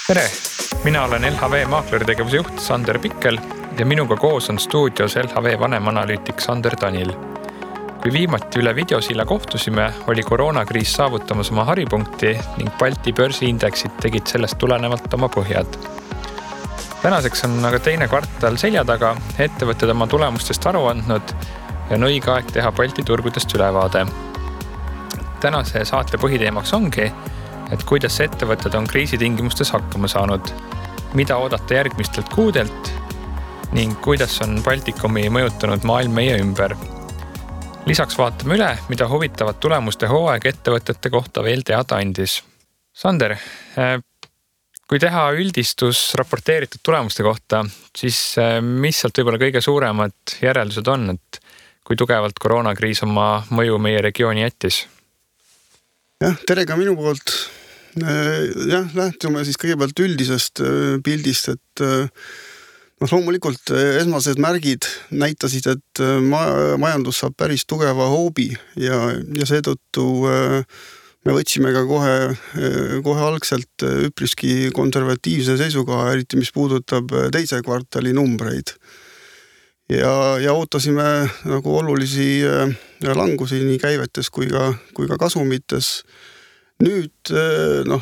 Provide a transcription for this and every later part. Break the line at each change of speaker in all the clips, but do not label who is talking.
Tere! Mina olen LHV maakleritegevuse juht Sander Pikkel ja minuga koos on stuudios LHV vanemanalüütik Sander Tanil. Kui viimati üle videosilla kohtusime, oli koroonakriis saavutamas oma haripunkti ning Balti börsiindeksid tegid sellest tulenevalt oma põhjad. Tänaseks on aga teine kvartal selja taga, ettevõtted oma tulemustest aru andnud ja on õige aeg teha Balti turgudest ülevaade. Tänase saate põhiteemaks ongi, et kuidas ettevõtted on kriisitingimustes hakkama saanud, mida oodata järgmistelt kuudelt ning kuidas on Baltikumi mõjutanud maailm meie ümber. Lisaks vaatame üle, mida huvitavad tulemuste hooaeg ettevõtete kohta veel teada andis. Sander, kui teha üldistus raporteeritud tulemuste kohta, siis mis sealt võib-olla kõige suuremad järeldused on, et kui tugevalt koroonakriis oma mõju meie regiooni jättis?
Tere ka minu poolt. Lähtume siis kõigepealt üldisest pildist, et loomulikult esmased märgid näitasid, et majandus saab päris tugeva hoobi ja seetõttu me võtsime ka kohe algselt üpriski konservatiivse seisukoha, eriti mis puudutab teise kvartali numbreid. Ja ootasime nagu olulisi langusi nii käivetes kui ka kasumites. Nüüd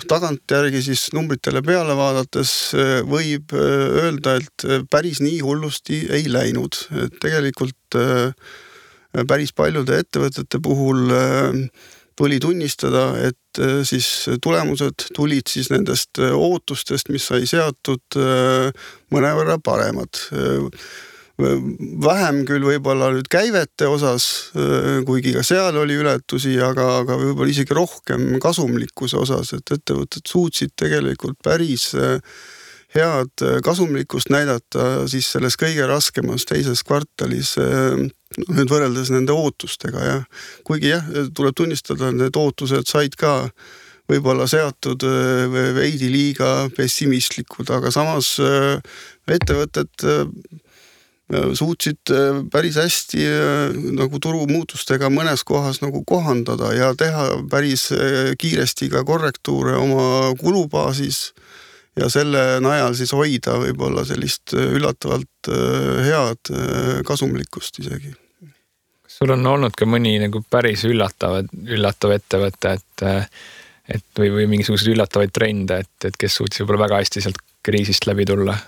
tagantjärgi siis numbritele peale vaadates võib öelda, et päris nii hullusti ei läinud. Et tegelikult päris paljude ettevõtete puhul tuli tunnistada, et siis tulemused tulid siis nendest ootustest, mis sai seatud mõnevõrra paremad. Vähem küll võib-olla nüüd käivete osas, kuigi ka seal oli ületusi, aga võib-olla isegi rohkem kasumlikkuse osas, et ettevõtted suutsid tegelikult päris head kasumlikkust näidata siis selles kõige raskemas teises kvartalis nüüd võrreldes nende ootustega. Ja. Kuigi tuleb tunnistada, et need ootused said ka võib-olla seatud veidi liiga pessimistlikud, aga samas ettevõtted suutsid päris hästi nagu turumuutustega mõnes kohas nagu kohandada ja teha päris kiiresti ka korrektuure oma kulubaasis ja selle najal siis hoida võib-olla sellist üllatavalt head kasumlikkust isegi.
Kas sul on olnud ka mõni nagu päris üllatav ettevõte, et või mingisuguseid üllatavaid trende, et kes suutis võib-olla väga hästi sealt kriisist läbi tulla?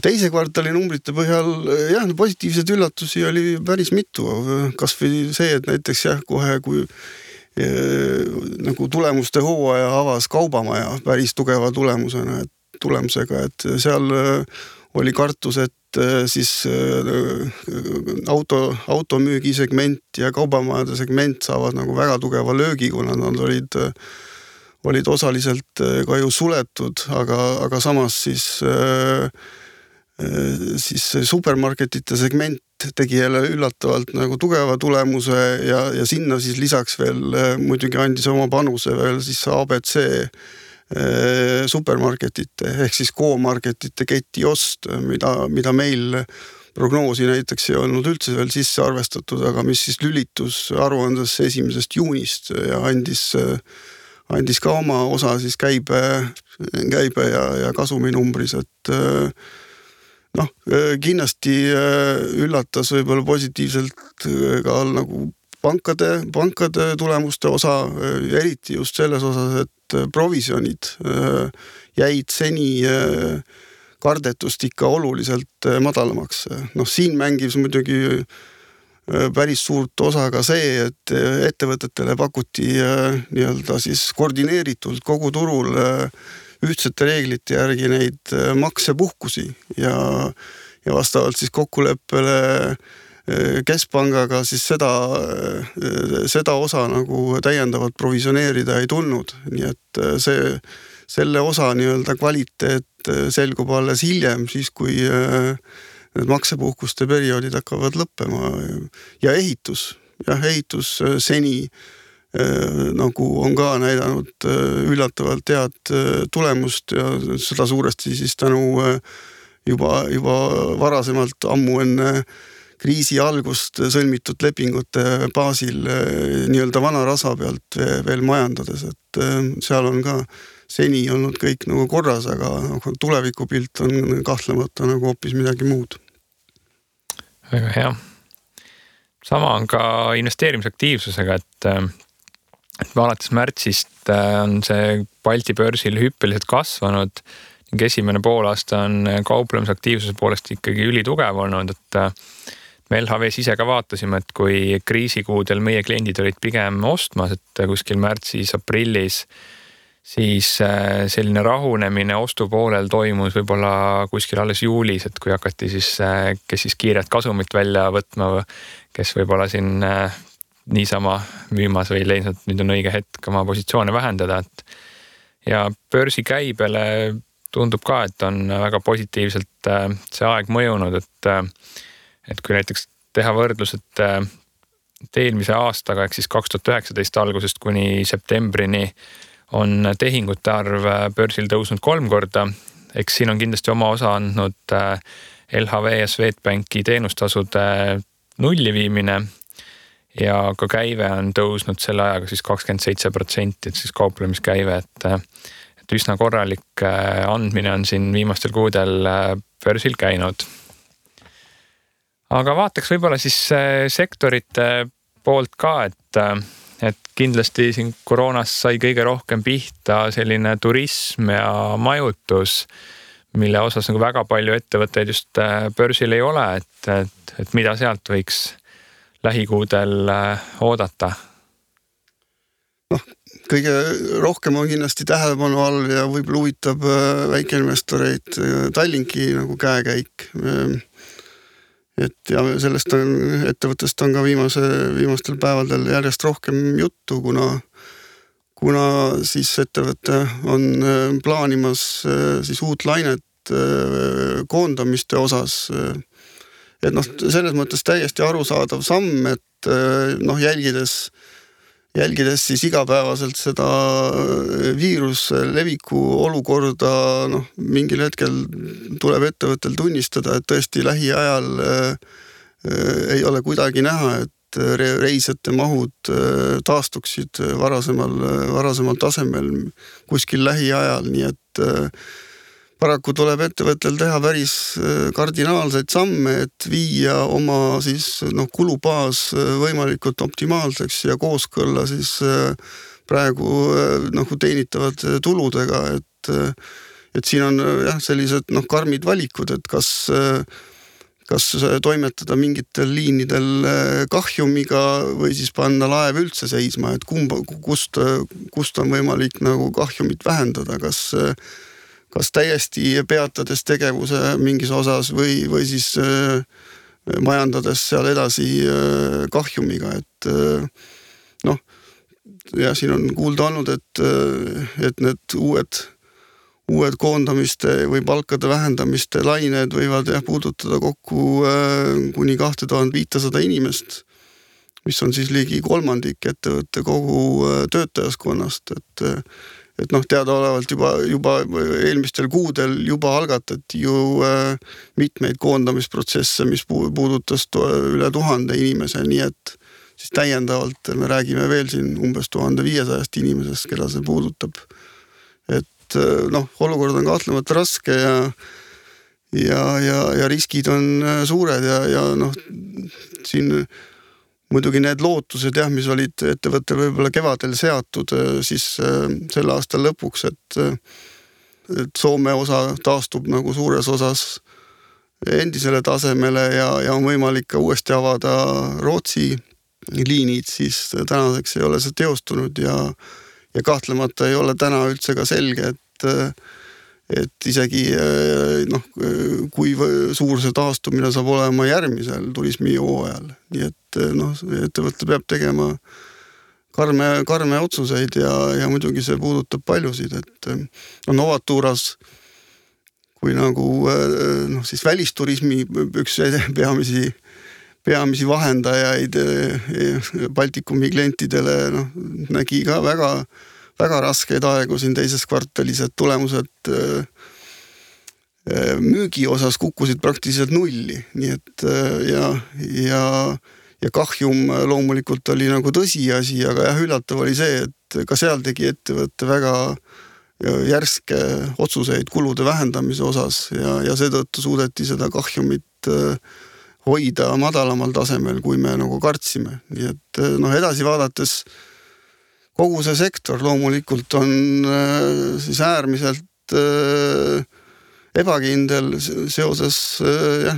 Teise kvartali numbrite põhjal positiivseid üllatusi oli päris mitu. Kas või see, et näiteks kohe kui nagu tulemuste hooaja avas kaubamaja päris tugeva tulemusega, et seal oli kartus, et siis automüügi segment ja kaubamajade segment saavad nagu väga tugeva löögi, kuna nad olid osaliselt ka ju suletud, aga samas siis supermarketite segment tegi jälle üllatavalt nagu tugeva tulemuse ja sinna siis lisaks veel muidugi andis oma panuse veel siis ABC supermarketite ehk siis K-marketite keti ost, mida meil prognoosi näiteks ei olnud üldse veel sisse arvestatud, aga mis siis lülitus aruandes 1. juunist ja andis ka oma osa siis käibe ja kasuminumbris, et kindlasti üllatas võib-olla positiivselt ka nagu pankade tulemuste osa, eriti just selles osas, et provisionid jäid seni kardetust ikka oluliselt madalamaks. Siin mängis muidugi päris suurt osa ka see, et ettevõtetele pakuti nii-öelda siis koordineeritult kogu turul ühtsete reeglite järgi neid maksepuhkusi ja vastavalt siis kokkuleppele keskpangaga siis seda osa nagu täiendavalt provisioneerida ei tulnud. Nii et selle osa nii-öelda kvaliteet selgub alles hiljem, siis kui need maksepuhkuste perioodid hakkavad lõppema ja ehitus seni nagu on ka näidanud üllatavalt head tulemust ja seda suuresti siis tänu juba varasemalt ammu enne kriisi algust sõlmitud lepingute baasil nii-öelda vana rasa pealt veel majandades, et seal on ka seni olnud kõik nagu korras, aga tulevikupilt on kahtlemata nagu hoopis midagi muud.
Väga hea. Sama on ka investeerimisaktiivsusega, et alates märtsist on see Balti börsil hüppeliselt kasvanud ning esimene poolaasta on kauplemisaktiivsuse poolest ikkagi ülitugev olnud, et me LHV-s ise ka vaatasime, et kui kriisikuudel meie kliendid olid pigem ostmas, et kuskil märtsis, aprillis, siis selline rahunemine ostupoolel toimus võib-olla kuskil alles juulis, et kui hakati siis, kes siis kiiret kasumit välja võtma, kes võib-olla siin niisama müümas või leidnud, et nüüd on õige hetk oma positsioone vähendada, et ja börsi käibele tundub ka, et on väga positiivselt see aeg mõjunud, et kui näiteks teha võrdlus, et eelmise aastaga, ehk siis 2019 algusest kuni septembrini on tehingute arv börsil tõusnud 3 korda, eks siin on kindlasti oma osa andnud LHV ja Swedbanki teenustasude nulli viimine ja ka käive on tõusnud selle ajaga siis 27%, et siis kauplemiskäive, et üsna korralik andmine on siin viimastel kuudel börsil käinud. Aga vaataks võib-olla siis sektorite poolt ka, et kindlasti siin koroonas sai kõige rohkem pihta selline turism ja majutus, mille osas nagu väga palju ettevõtteid just börsil ei ole, et mida sealt võiks lähikuudel oodata?
Kõige rohkem on kindlasti tähelepanu all ja võib-olla huvitab väikeinvestoreid Tallinki nagu käekäik. Et ja sellest ettevõttest on ka viimastel päevadel järjest rohkem juttu, kuna siis ettevõte on plaanimas siis uut lainet koondamiste osas. Et selles mõttes täiesti arusaadav samm, et jälgides siis igapäevaselt seda viiruse leviku olukorda, mingil hetkel tuleb ettevõttel tunnistada, et tõesti lähiajal ei ole kuidagi näha, et reisijate mahud taastuksid varasemal tasemel kuskil lähiajal, nii et paraku tuleb ettevõttel teha päris kardinaalseid samme, et viia oma siis kulubaas võimalikult optimaalseks ja kooskõlla siis praegu teenitavad tuludega, et siin on jah sellised karmid valikud, et kas toimetada mingitel liinidel kahjumiga või siis panna laev üldse seisma, et kust on võimalik nagu kahjumit vähendada, kas täiesti peatades tegevuse mingis osas või siis majandades seal edasi kahjumiga, et ja siin on kuulda olnud, et need uued koondamiste või palkade vähendamiste lained võivad puudutada kokku kuni 2500 inimest, mis on siis ligi 1/3 ettevõtte kogu töötajaskonnast, et teadaolevalt juba eelmistel kuudel juba algatati ju mitmeid koondamisprotsesse, mis puudutas üle 1000 inimese, nii et siis täiendavalt me räägime veel siin umbes 1500 inimesest, keda see puudutab. Et olukord on kahtlemata raske ja riskid on suured ja siin muidugi need lootused, mis olid ettevõttel võib-olla kevadel seatud siis selle aasta lõpuks, et Soome osa taastub nagu suures osas endisele tasemele ja on võimalik ka uuesti avada Rootsi liinid, siis tänaseks ei ole see teostunud ja kahtlemata ei ole täna üldse ka selge, et isegi kui suur see taastumine saab olema järgmisel turismihooajal. Nii et ettevõte peab tegema karme otsuseid ja muidugi see puudutab paljusid, et Novaturas kui nagu siis välisturismi üks peamisi vahendajaid Baltikumi klientidele nägi ka väga raskeid aegu siin teises kvartalis, et tulemused müügi osas kukkusid praktiliselt nulli, nii et ja kahjum loomulikult oli nagu tõsiasi, aga jah, üllatav oli see, et ka seal tegi ettevõtte väga järske otsuseid kulude vähendamise osas ja seetõttu suudeti seda kahjumit hoida madalamal tasemel, kui me nagu kartsime. Nii et edasi vaadates kogu see sektor loomulikult on siis äärmiselt ebakindel seoses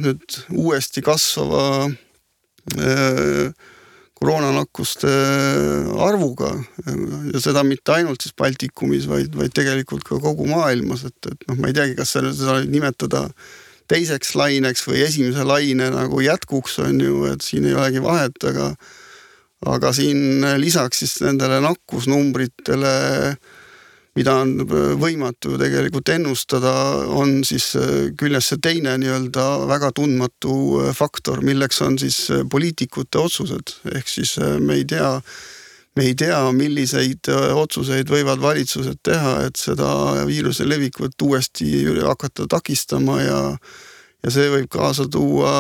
nüüd uuesti kasvava koroonanakkuste arvuga ja seda mitte ainult siis Baltikumis, vaid tegelikult ka kogu maailmas, et ma ei teagi, kas seda nimetada teiseks laineks või esimese laine nagu jätkuks on ju, et siin ei olegi vahet, aga siin lisaks siis nendele nakkusnumbritele, mida on võimatu tegelikult ennustada, on siis küljes see teine nii-öelda väga tundmatu faktor, milleks on siis poliitikute otsused. Ehk siis me ei tea, milliseid otsuseid võivad valitsused teha, et seda viiruse levikut uuesti hakata takistama ja see võib kaasa tuua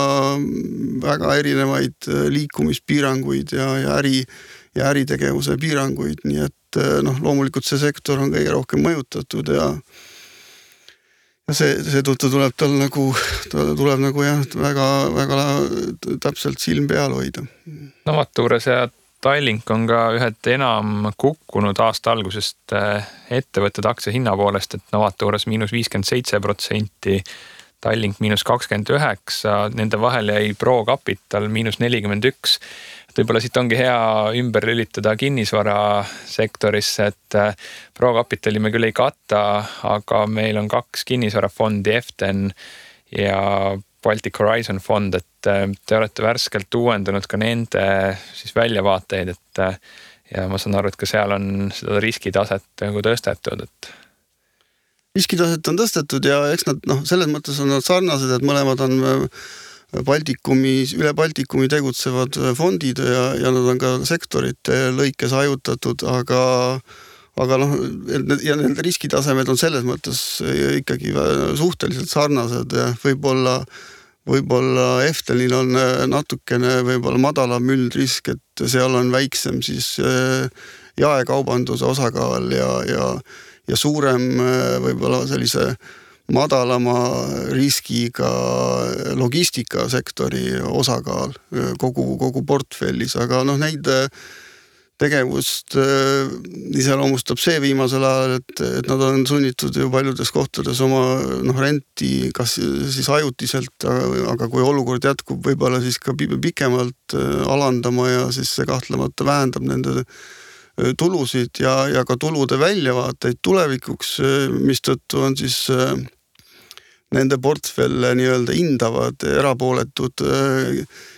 väga erinevaid liikumispiiranguid ja äritegevuse piiranguid, nii et loomulikult see sektor on kõige rohkem mõjutatud ja seetõttu tuleb nagu jah, väga täpselt silm peal hoida.
Novaturas ja Tallink on ka ühed enam kukkunud aasta algusest ettevõtted aktsia hinna poolest, et Novaturas -57%, Tallink -29%, nende vahel jäi ProCapital -41%. Võib-olla siit ongi hea ümber lülitada kinnisvara sektorisse, et ProCapitali me küll ei katta, aga meil on 2 kinnisvarafondi, EFTEN ja Baltic Horizon fond, et te olete värskelt uuendanud ka nende siis väljavaateid, et ja ma saan aru, et ka seal on seda riskitaset nagu tõstetud, et
riskitaset on tõstetud ja eks nad selles mõttes on nad sarnased, et mõlemad on üle Baltikumi tegutsevad fondid ja nad on ka sektorite lõikes hajutatud, aga ja need riskitasemed on selles mõttes ikkagi suhteliselt sarnased ja võib-olla EFTENil on natukene võib-olla madalam üldrisk, et seal on väiksem siis jaekaubanduse osakaal ja suurem võib-olla sellise madalama riskiga logistikasektori osakaal kogu portfellis, aga neid tegevust iseloomustab see viimasel ajal, et nad on sunnitud ju paljudes kohtades oma renti kas siis ajutiselt, aga kui olukord jätkub, võib-olla siis ka pikemalt alandama ja siis see kahtlemata vähendab nende tulusid ja ka tulude väljavaateid tulevikuks, mistõttu on siis nende portfelle nii-öelda hindavad erapooletud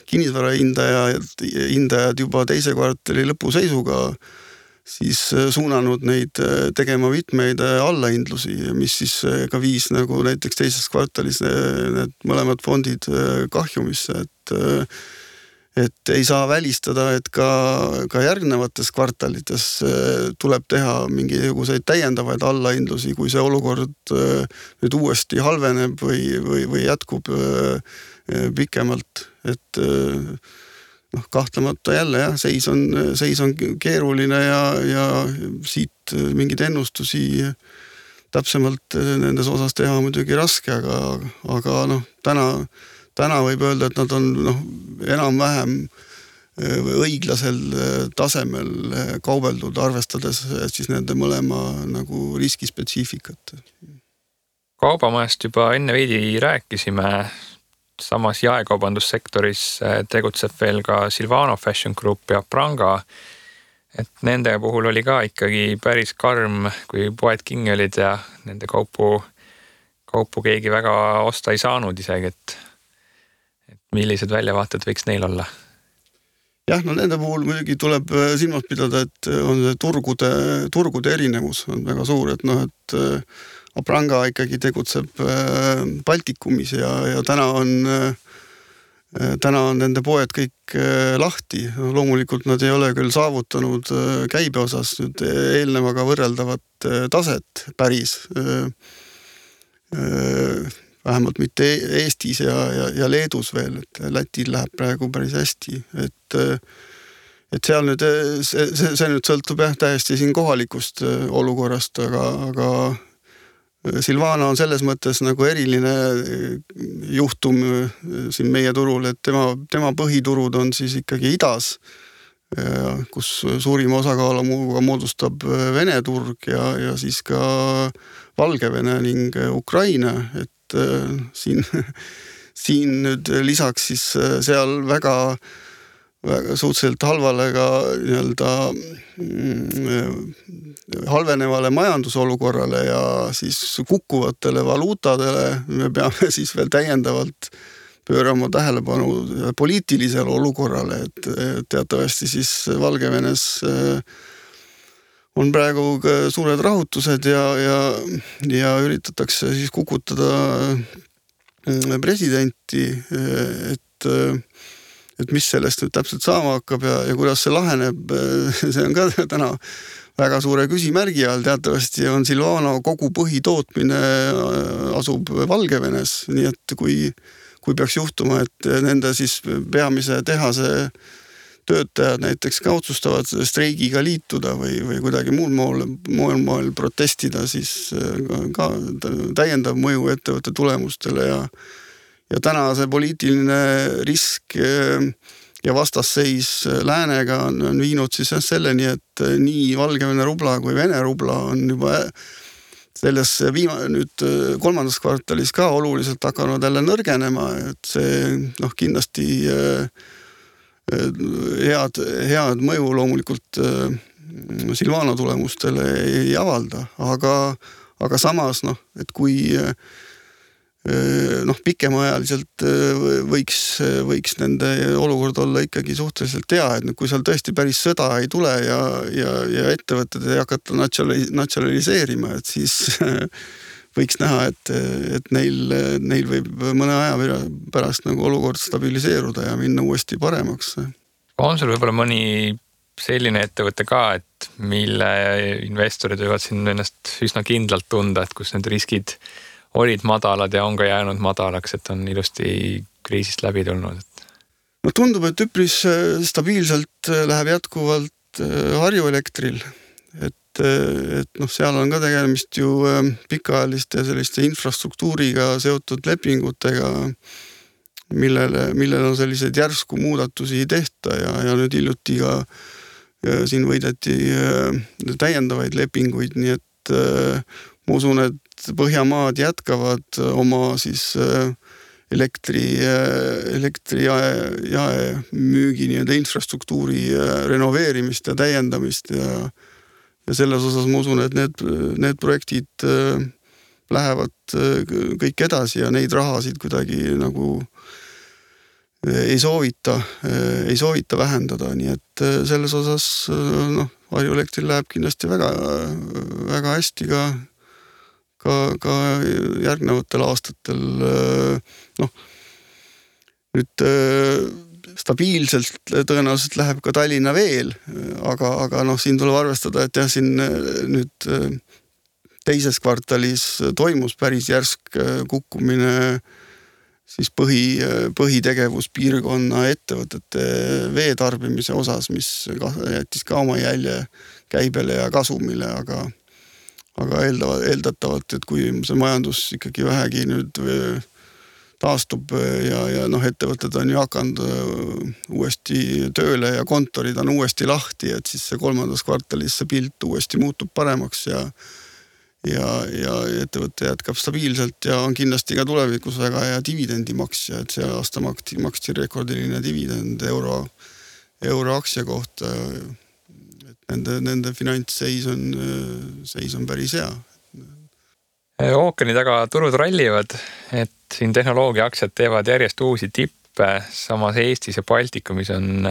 kinnisvara hindajad juba teise kvartali lõpuseisuga siis suunanud neid tegema mitmeid allahindlusi, mis siis ka viis nagu näiteks teises kvartalis need mõlemad fondid kahjumisse, et ei saa välistada, et ka järgnevates kvartalites tuleb teha mingisuguseid täiendavaid allahindlusi, kui see olukord nüüd uuesti halveneb või jätkub pikemalt, et kahtlemata jälle jah, seis on keeruline ja siit mingeid ennustusi täpsemalt nendes osas teha muidugi raske, aga täna võib öelda, et nad on enam-vähem õiglasel tasemel kaubeldud, arvestades siis nende mõlema nagu riskispetsiifikat.
Kaubamajast juba enne veidi rääkisime, samas jaekaubandussektoris tegutseb veel ka Silvano Fashion Group ja Pranga, et nende puhul oli ka ikkagi päris karm, kui poed kinni olid ja nende kaupu keegi väga osta ei saanud isegi, et millised väljavaated võiks neil olla?
Jah, nende puhul muidugi tuleb silmas pidada, et on see turgude erinevus on väga suur, et Pranga ikkagi tegutseb Baltikumis ja täna on nende poed kõik lahti. Loomulikult nad ei ole küll saavutanud käibe osas nüüd eelnevaga võrreldavat taset päris. vähemalt mitte Eestis ja Leedus veel, et Lätil läheb praegu päris hästi, et seal nüüd, see nüüd sõltub täiesti siin kohalikust olukorrast, aga Silvana on selles mõttes nagu eriline juhtum siin meie turul, et tema põhiturud on siis ikkagi idas, kus suurima osakaalu moodustab Vene turg ja siis ka Valgevene ning Ukraina, et siin nüüd lisaks siis seal väga suhteliselt halvale ka nii-öelda halvenevale majandusolukorrale ja siis kukkuvatele valuutadele me peame siis veel täiendavalt pöörama tähelepanu poliitilisele olukorrale, et teatavasti siis Valgevenes on praegu suured rahutused ja üritatakse siis kukutada presidenti, et mis sellest nüüd täpselt saama hakkab ja kuidas see laheneb, see on ka täna väga suure küsimärgi all. Teatavasti on Silvana kogu põhitootmine asub Valgevenes, nii et kui peaks juhtuma, et nende siis peamise tehase töötajad näiteks ka otsustavad streigiga liituda või kuidagi muul moel protestida, siis ka täiendav mõju ettevõtte tulemustele ja täna see poliitiline risk ja vastasseis läänega on viinud siis selleni, et nii Valgevene rubla kui Vene rubla on juba selles nüüd kolmandas kvartalis ka oluliselt hakanud jälle nõrgenema, et see kindlasti head mõju loomulikult Silvana tulemustele ei avalda, aga samas, et kui pikemaajaliselt võiks nende olukord olla ikkagi suhteliselt hea, et kui seal tõesti päris sõda ei tule ja ettevõtted ei hakata natsionaliseerima, et siis võiks näha, et neil võib mõne aja pärast nagu olukord stabiliseeruda ja minna uuesti paremaks.
On sul võib-olla mõni selline ettevõte ka, et mille investorid võivad siin ennast üsna kindlalt tunda, et kus need riskid olid madalad ja on ka jäänud madalaks, et on ilusti kriisist läbi tulnud?
No tundub, et üpris stabiilselt läheb jätkuvalt Harju Elektril, et seal on ka tegemist ju pikaajaliste selliste infrastruktuuriga seotud lepingutega, millel on selliseid järsku muudatusi ei tehta ja nüüd hiljuti ka siin võideti täiendavaid lepinguid, nii et ma usun, et Põhjamaad jätkavad oma siis elektri jaemüügi nii-öelda infrastruktuuri renoveerimist ja täiendamist ja selles osas ma usun, et need projektid lähevad kõik edasi ja neid rahasid kuidagi nagu ei soovita vähendada, nii et selles osas Harju Elektril läheb kindlasti väga, väga hästi ka järgnevatel aastatel nüüd stabiilselt tõenäoliselt läheb ka Tallinna veel, aga siin tuleb arvestada, et siin nüüd teises kvartalis toimus päris järsk kukkumine siis põhitegevuspiirkonna ettevõtete veetarbimise osas, mis jättis ka oma jälje käibele ja kasumile, aga eeldatavalt, et kui see majandus ikkagi vähegi nüüd taastub ja ettevõtted on ju hakanud uuesti tööle ja kontorid on uuesti lahti, et siis see kolmandas kvartalis see pilt uuesti muutub paremaks ja ettevõte jätkab stabiilselt ja on kindlasti ka tulevikus väga hea dividendimaksja, et see aasta maksti rekordiline dividend euro aktsia kohta. Nende finantsseis on päris hea.
Ookeani taga turud rallivad, et siin tehnoloogia aktsiad teevad järjest uusi tippe, samas Eestis ja Baltikumis on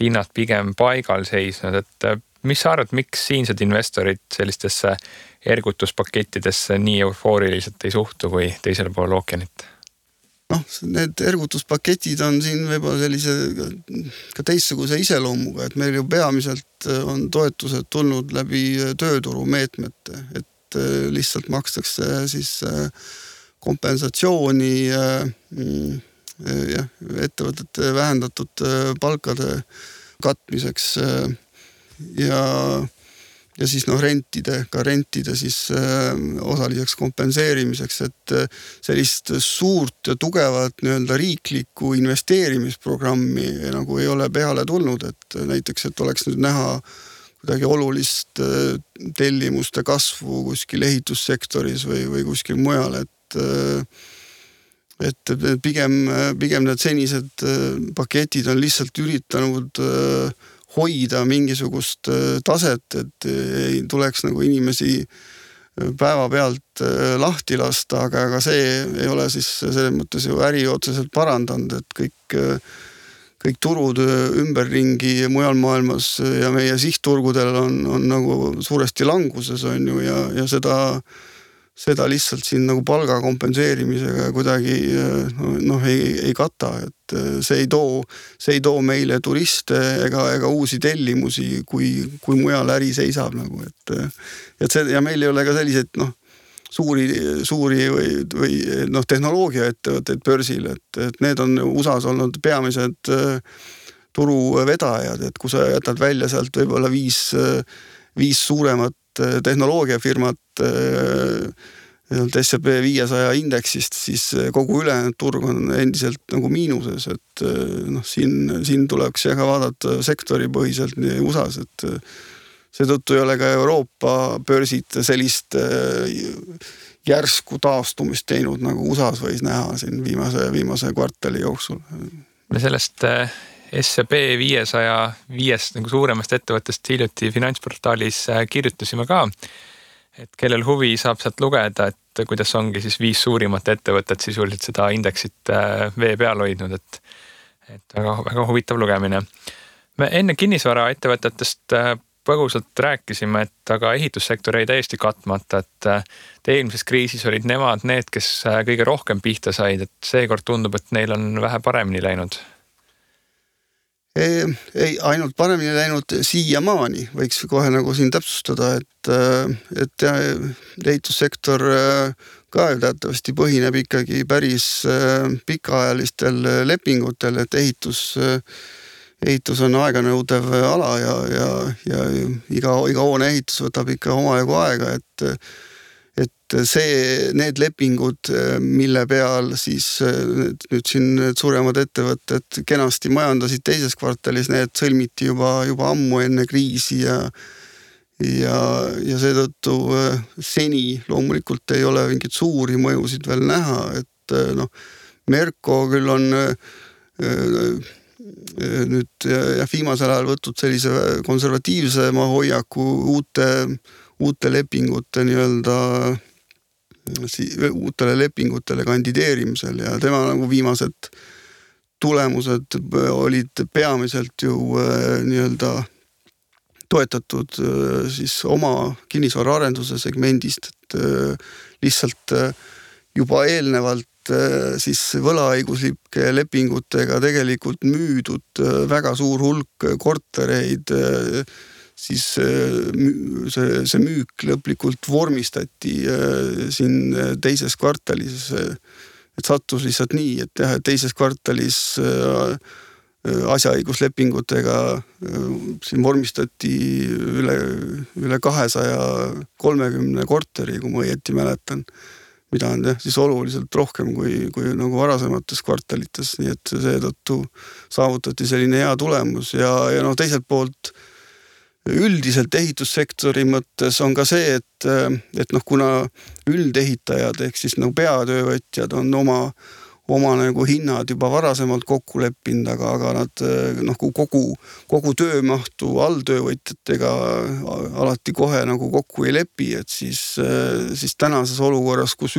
hinnad pigem paigal seisnud, et mis sa arvad, miks siinsed investorid sellistesse ergutuspakettidesse nii eufooriliselt ei suhtu kui teisele pool ookeanit?
Need ergutuspaketid on siin võib-olla sellise ka teistsuguse iseloomuga, et meil ju peamiselt on toetused tulnud läbi tööturu meetmete, et lihtsalt makstakse siis kompensatsiooni ettevõtete vähendatud palkade katmiseks ja siis rentide siis osaliseks kompenseerimiseks, et sellist suurt ja tugevat nii-öelda riiklikku investeerimisprogrammi nagu ei ole peale tulnud, et näiteks, et oleks nüüd näha kuidagi olulist tellimuste kasvu kuskil ehitussektoris või kuskil mujal, et pigem need senised paketid on lihtsalt üritanud hoida mingisugust taset, et ei tuleks nagu inimesi päevapealt lahti lasta, aga see ei ole siis selles mõttes ju äri otseselt parandanud, et kõik turud ümberringi mujal maailmas ja meie sihtturgudel on nagu suuresti languses on ju ja seda lihtsalt siin nagu palga kompenseerimisega kuidagi ei kata, et see ei too meile turiste ega uusi tellimusi, kui mujal äri seisab nagu, et see ja meil ei ole ka selliseid suuri või tehnoloogiaettevõtteid börsil, et need on USA's olnud peamised turuvedajad, et kui sa jätad välja sealt võib-olla viis suuremat tehnoloogiafirmat S&P 500 indeksist, siis kogu ülejäänud turg on endiselt nagu miinuses, et siin tuleks ka vaadata sektoripõhiselt nii USA's, et seetõttu ei ole ka Euroopa börsid sellist järsku taastumist teinud, nagu USA's võis näha siin viimase kvartali jooksul.
Me sellest S&P 505 nagu suuremast ettevõttest hiljuti finantsportaalis kirjutasime ka, et kellel huvi saab sealt lugeda, et kuidas ongi siis 5 suurimat ettevõtet sisuliselt seda indeksit vee peal hoidnud, et väga huvitav lugemine. Me enne kinnisvara ettevõtetest põgusalt rääkisime, et aga ehitussektor jäi täiesti katmata, et eelmises kriisis olid nemad need, kes kõige rohkem pihta said, et seekord tundub, et neil on vähe paremini läinud.
Ei, ainult paremini läinud siiamaani, võiks kohe nagu siin täpsustada, et ehitussektor ka teatavasti põhineb ikkagi päris pikaajalistel lepingutel, et ehitus on aeganõudev ala ja iga hoone ehitus võtab ikka omajagu aega, et need lepingud, mille peal siis nüüd siin suuremad ettevõtted kenasti majandasid teises kvartalis, need sõlmiti juba ammu enne kriisi ja seetõttu seni loomulikult ei ole mingit suuri mõjusid veel näha, et Merko küll on nüüd viimasel ajal võtnud sellise konservatiivsema hoiaku uute lepingute uutele lepingutele kandideerimisel ja tema nagu viimased tulemused olid peamiselt ju toetatud siis oma kinnisvaraarenduse segmendist, et lihtsalt juba eelnevalt siis võlaõiguslike lepingutega tegelikult müüdud väga suur hulk kortereid, siis see müük lõplikult vormistati siin teises kvartalis, et sattus lihtsalt nii, et teises kvartalis asjaõiguslepingutega siin vormistati üle 230 korteri, kui ma õieti mäletan, mida on siis oluliselt rohkem kui nagu varasemates kvartalites, nii et seetõttu saavutati selline hea tulemus ja teiselt poolt üldiselt ehitussektori mõttes on ka see, et kuna üldehitajad ehk siis nagu peatöövõtjad on oma nagu hinnad juba varasemalt kokku leppinud, aga nad kogu töömahtu alltöövõtjatega alati kohe nagu kokku ei lepi, et siis tänases olukorras, kus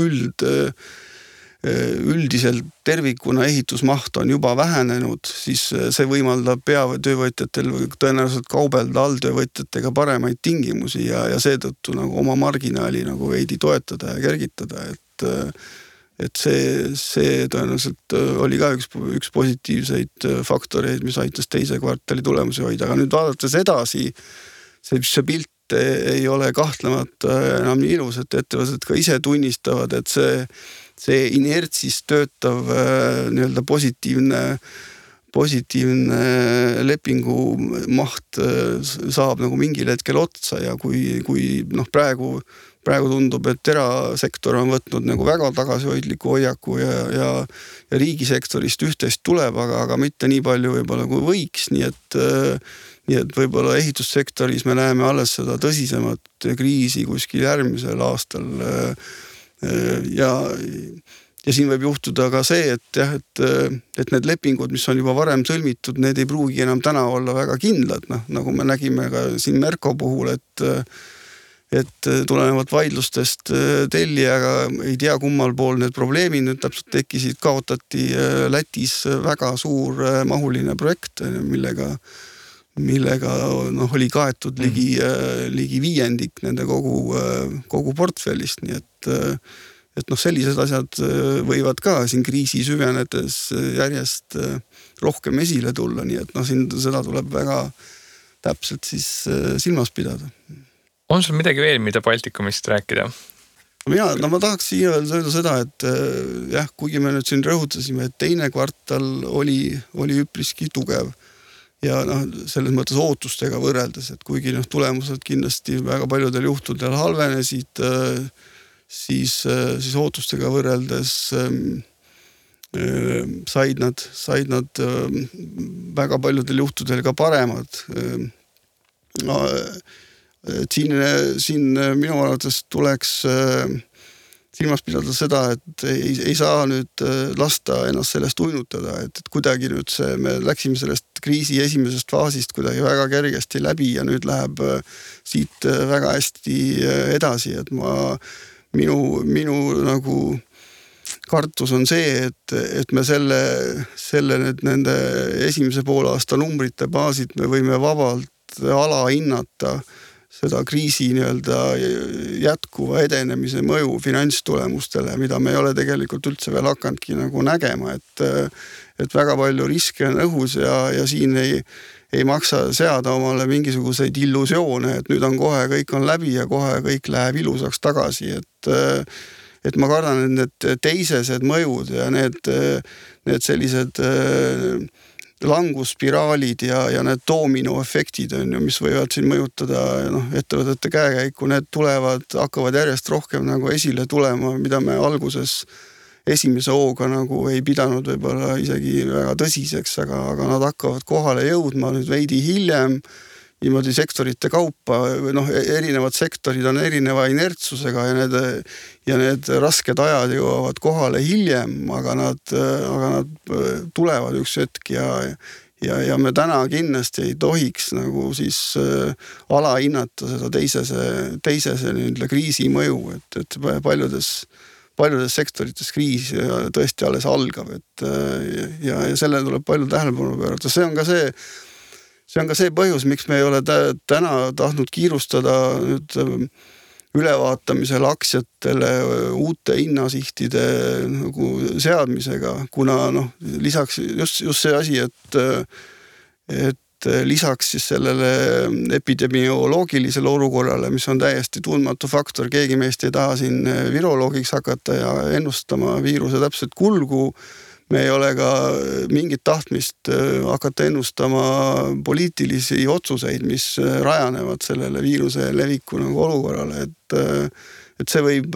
üldiselt tervikuna ehitusmaht on juba vähenenud, siis see võimaldab peatöövõtjatel tõenäoliselt kaubelda alltöövõtjatega paremaid tingimusi ja seetõttu nagu oma marginaali nagu veidi toetada ja kergitada, et see tõenäoliselt oli ka üks positiivseid faktoreid, mis aitas teise kvartali tulemusi hoida, aga nüüd vaadates edasi, see pilt ei ole kahtlemata enam nii ilus, et ettevõtted ka ise tunnistavad, et see inertsis töötav nii-öelda positiivne lepingu maht saab nagu mingil hetkel otsa ja kui praegu tundub, et erasektor on võtnud nagu väga tagasihoidliku hoiaku ja riigisektorist üht-teist tuleb, aga mitte nii palju võib-olla kui võiks, nii et võib-olla ehitussektoris me näeme alles seda tõsisemat kriisi kuskil järgmisel aastal ja siin võib juhtuda ka see, et need lepingud, mis on juba varem sõlmitud, need ei pruugi enam täna olla väga kindlad, nagu me nägime ka siin Merko puhul, et tulenevalt vaidlustest tellijaga ei tea kummal pool need probleemid nüüd täpselt tekkisid, kaotati Lätis väga suur mahuline projekt, millega oli kaetud ligi 5% nende kogu portfellist, nii et sellised asjad võivad ka siin kriisi süvenedes järjest rohkem esile tulla, nii et siin seda tuleb väga täpselt siis silmas pidada.
On sul midagi veel, mida Baltikumist rääkida?
Ma tahaks siia öelda seda, et kuigi me nüüd siin rõhutasime, et teine kvartal oli üpriski tugev ja selles mõttes ootustega võrreldes, et kuigi tulemused kindlasti väga paljudel juhtudel halvenesid, siis ootustega võrreldes said nad väga paljudel juhtudel ka paremad. Siin minu arvates tuleks silmas pidada seda, et ei saa nüüd lasta ennast sellest uinutada, et kuidagi nüüd me läksime sellest kriisi esimesest faasist kuidagi väga kergesti läbi ja nüüd läheb siit väga hästi edasi, et minu nagu kartus on see, et me selle nende esimese poolaasta numbrite baasid me võime vabalt alahinnata seda kriisi nii-öelda jätkuva edenemise mõju finantstulemustele, mida me ei ole tegelikult üldse veel hakanudki nagu nägema, et väga palju riske on õhus ja siin ei maksa seada omale mingisuguseid illusioone, et nüüd on kohe kõik on läbi ja kohe kõik läheb ilusaks tagasi, et ma kardan, et need teisesed mõjud ja need sellised langusspiraalid ja need doominoefektid on ju, mis võivad siin mõjutada ettevõtete käekäiku, need hakkavad järjest rohkem nagu esile tulema, mida me alguses esimese hooga nagu ei pidanud võib-olla isegi väga tõsiseks, aga nad hakkavad kohale jõudma nüüd veidi hiljem, niimoodi sektorite kaupa, erinevad sektorid on erineva inertsusega ja need rasked ajad jõuavad kohale hiljem, aga nad tulevad üks hetk ja me täna kindlasti ei tohiks nagu siis alahinnata seda teisese kriisi mõju, et paljudes sektorites kriis tõesti alles algab, ja sellele tuleb palju tähelepanu pöörata. See on ka see põhjus, miks me ei ole täna tahtnud kiirustada nüüd ülevaatamisel aktsiatele uute hinnasihtide nagu seadmisega, kuna lisaks just see asi, et lisaks siis sellele epidemioloogilisele olukorrale, mis on täiesti tundmatu faktor, keegi meist ei taha siin viroloogiks hakata ja ennustama viiruse täpselt kulgu, me ei ole ka mingit tahtmist hakata ennustama poliitilisi otsuseid, mis rajanevad sellele viiruse leviku nagu olukorrale, et see võib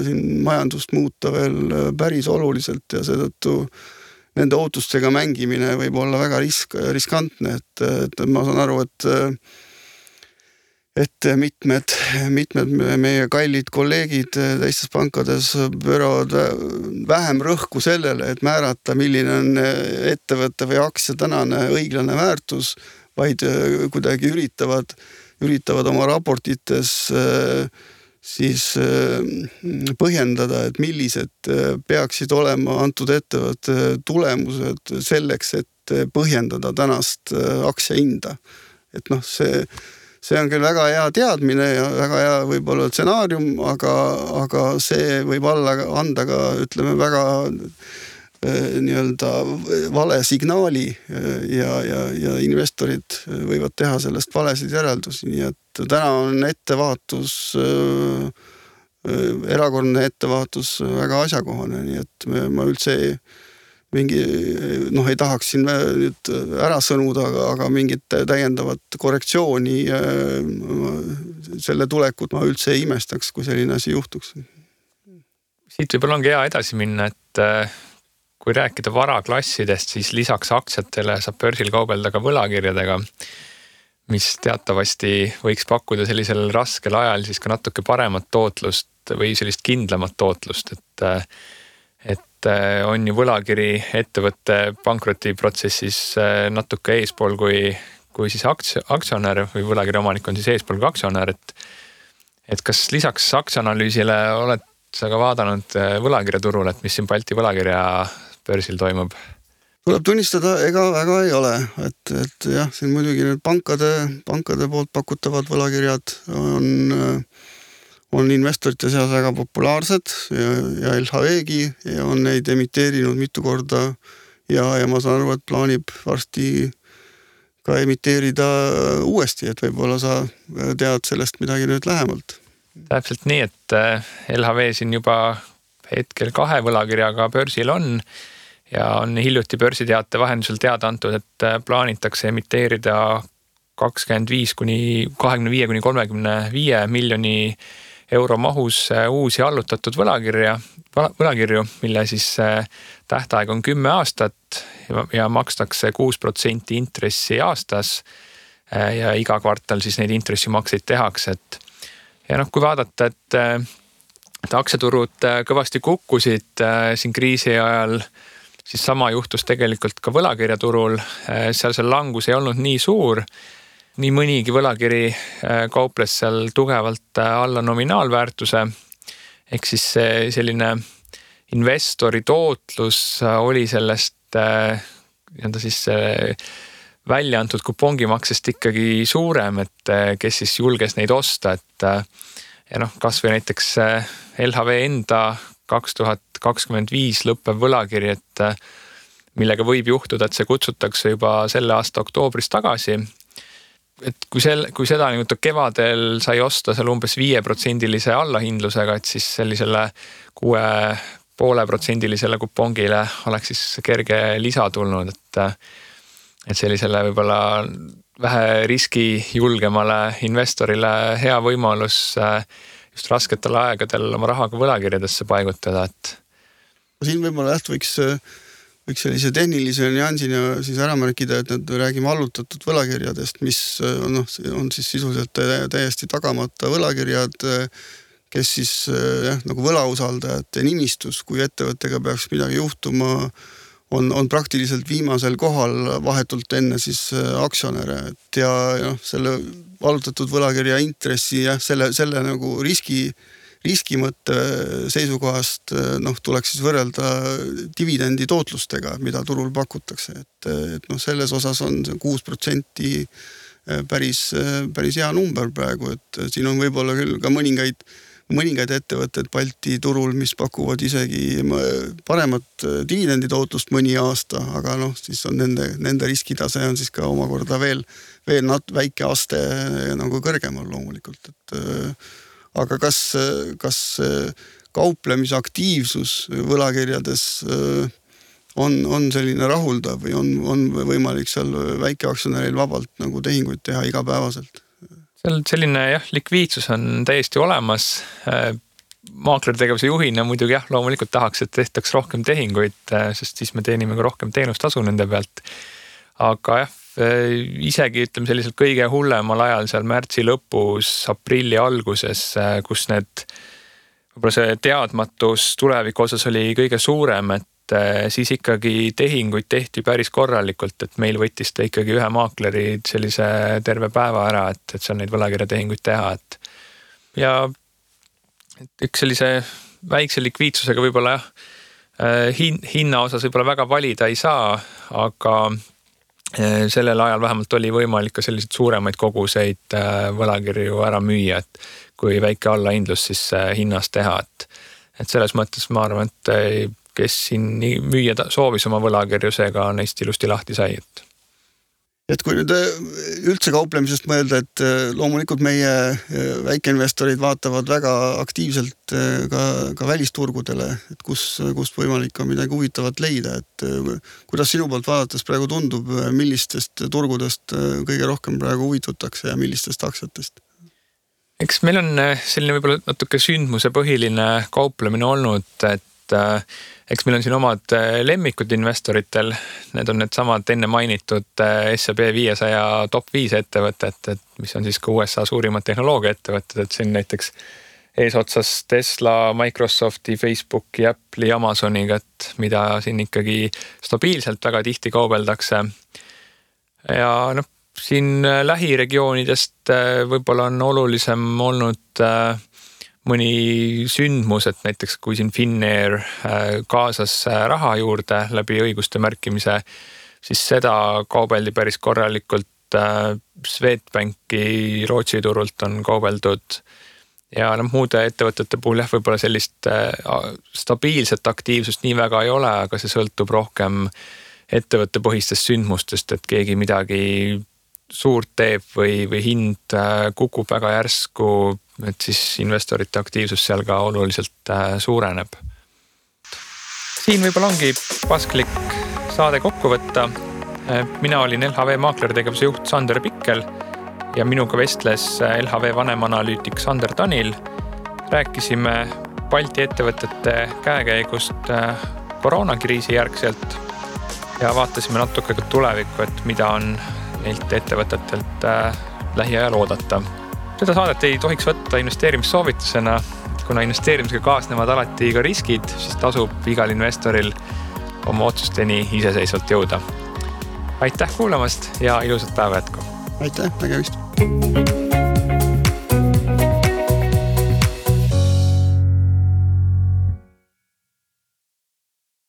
siin majandust muuta veel päris oluliselt ja seetõttu nende ootustega mängimine võib olla väga riskantne, et ma saan aru, et mitmed meie kallid kolleegid teistes pankades pööravad vähem rõhku sellele, et määrata, milline on ettevõtte või aktsia tänane õiglane väärtus, vaid kuidagi üritavad oma raportites siis põhjendada, et millised peaksid olema antud ettevõtte tulemused selleks, et põhjendada tänast aktsiahinda. Et see on küll väga hea teadmine ja väga hea võib-olla stsenaarium, aga see võib anda ka, ütleme, väga nii-öelda vale signaali ja investorid võivad teha sellest valesid järeldusi, nii et täna on ettevaatus erakordne ettevaatus väga asjakohane, nii et ma üldse ei tahaks siin nüüd ära sõnuda, aga mingit täiendavat korrektsiooni selle tulekut ma üldse ei imestaks, kui selline asi juhtuks.
Siit võib-olla ongi hea edasi minna, et kui rääkida varaklassidest, siis lisaks aktsiatele saab börsil kaubelda ka võlakirjadega, mis teatavasti võiks pakkuda sellisel raskel ajal siis ka natuke paremat tootlust või sellist kindlamat tootlust, et on ju võlakiri ettevõtte pankrotiprotsessis natuke eespool kui siis aktsionär või võlakirja omanik on siis eespool kui aktsionär, et kas lisaks aktsianalüüsile oled sa ka vaadanud võlakirjaturul, et mis siin Balti võlakirja börsil toimub?
Tuleb tunnistada, ega väga ei ole, et jah, siin muidugi need pankade poolt pakutavad võlakirjad on investorite seas väga populaarsed ja LHV-gi ja on neid emiteerinud mitu korda ja ma saan aru, et plaanib varsti ka emiteerida uuesti, et võib-olla sa tead sellest midagi nüüd lähemalt.
Täpselt nii, et LHV siin juba hetkel 2 võlakirjaga börsil on ja on hiljuti börsiteate vahendusel teada antud, et plaanitakse emiteerida 25-35 miljoni euro mahus uusi allutatud võlakirju, mille siis tähtaeg on 10 aastat ja makstakse 6% intressi aastas ja iga kvartal siis neid intressimakseid tehakse. Ja kui vaadata, et aktsiaturud kõvasti kukkusid siin kriisi ajal, siis sama juhtus tegelikult ka võlakirjaturul. Seal see langus ei olnud nii suur. Nii mõnigi võlakiri kauples seal tugevalt alla nominaalväärtuse. Ehk siis selline investori tootlus oli sellest siis välja antud kupongimaksest ikkagi suurem, et kes siis julges neid osta. Ja kas või näiteks LHV enda 2025 lõppev võlakiri, et millega võib juhtuda, et see kutsutakse juba selle aasta oktoobris tagasi. Et kui seda kevadel sai osta seal umbes 5% allahindlusega, et siis sellisele 6,5% kupongile oleks siis kerge lisa tulnud, et sellisele võib-olla vähe riski julgemale investorile hea võimalus just rasketel aegadel oma rahaga võlakirjadesse paigutada.
Siin võib-olla võiks sellise tehnilise nüansina siis ära märkida, et nüüd räägime allutatud võlakirjadest, mis on siis sisuliselt täiesti tagamata võlakirjad, kes siis nagu võlausaldajate nimistus, kui ettevõttega peaks midagi juhtuma, on praktiliselt viimasel kohal vahetult enne siis aktsionäre. Ja selle allutatud võlakirja intressi ja selle nagu riski mõtte seisukohast tuleks siis võrrelda dividendi tootlustega, mida turul pakutakse. Et selles osas on 6% päris hea number praegu, et siin on võib-olla küll ka mõningaid ettevõtted Balti turul, mis pakuvad isegi paremat dividenditootlust mõni aasta, aga siis on nende riskitase on siis ka omakorda veel väike aste nagu kõrgemal loomulikult. Aga kas kauplemisaktiivsus võlakirjades on selline rahuldav või on võimalik seal väikeaktsionäril vabalt nagu tehinguid teha igapäevaselt?
Selline likviidsus on täiesti olemas. Maaklertegevuse juhina muidugi loomulikult tahaks, et tehtaks rohkem tehinguid, sest siis me teenime ka rohkem teenustasu nende pealt. Aga isegi ütleme selliselt kõige hullemal ajal seal märtsi lõpus, aprilli alguses, kus võib-olla see teadmatus tuleviku osas oli kõige suurem, et siis ikkagi tehinguid tehti päris korralikult, et meil võttis ta ikkagi ühe maakleri sellise terve päeva ära, et seal neid võlakirjatehinguid teha. Ja üks sellise väikse likviidsusega võib-olla hinna osas võib-olla väga valida ei saa, aga sellel ajal vähemalt oli võimalik ka selliseid suuremaid koguseid võlakirju ära müüa, et kui väike allahindlus siis hinnas teha. Et selles mõttes ma arvan, et kes siin müüa soovis oma võlakirju, seega neist ilusti lahti sai.
Et kui nüüd üldse kauplemisest mõelda, et loomulikult meie väikeinvestorid vaatavad väga aktiivselt ka välisturgudele, et kust võimalik on midagi huvitavat leida, et kuidas sinu poolt vaadates praegu tundub, millistest turgudest kõige rohkem praegu huvitutakse ja millistest aktsiatest?
Eks meil on selline võib-olla natuke sündmuse põhiline kauplemine olnud, et eks meil on siin omad lemmikud investoritel, need on need samad enne mainitud S&P 500 top 5 ettevõtet, mis on siis ka USA suurimad tehnoloogia ettevõtted, et siin näiteks eesotsas Tesla, Microsofti, Facebooki, Apple'i, Amazoniga, et mida siin ikkagi stabiilselt väga tihti kaubeldakse. Ja siin lähiregioonidest võib-olla on olulisem olnud mõni sündmus, et näiteks kui siin Finnair kaasas raha juurde läbi õiguste märkimise, siis seda kaubeldi päris korralikult. Swedbanki Rootsi turult on kaubeldud ja muude ettevõtete puhul võib-olla sellist stabiilset aktiivsust nii väga ei ole, aga see sõltub rohkem ettevõtte põhistest sündmustest, et keegi midagi suurt teeb või hind kukub väga järsku, et siis investorite aktiivsus seal ka oluliselt suureneb. Siin võib-olla ongi pasklik saade kokku võtta. Mina olin LHV maaklertegevuse juht Sander Pikkel ja minuga vestles LHV vanemanalüütik Sander Tanil. Rääkisime Balti ettevõtete käekäigust koroonakriisi järgselt ja vaatasime natuke ka tulevikku, et mida on neilt ettevõtetelt lähiajal oodata. Seda saadet ei tohiks võtta investeerimissoovitusena, kuna investeerimisega kaasnevad alati ka riskid, siis tasub igal investoril oma otsusteni iseseisvalt jõuda. Aitäh kuulamast ja ilusat päeva jätku!
Aitäh, nägemist!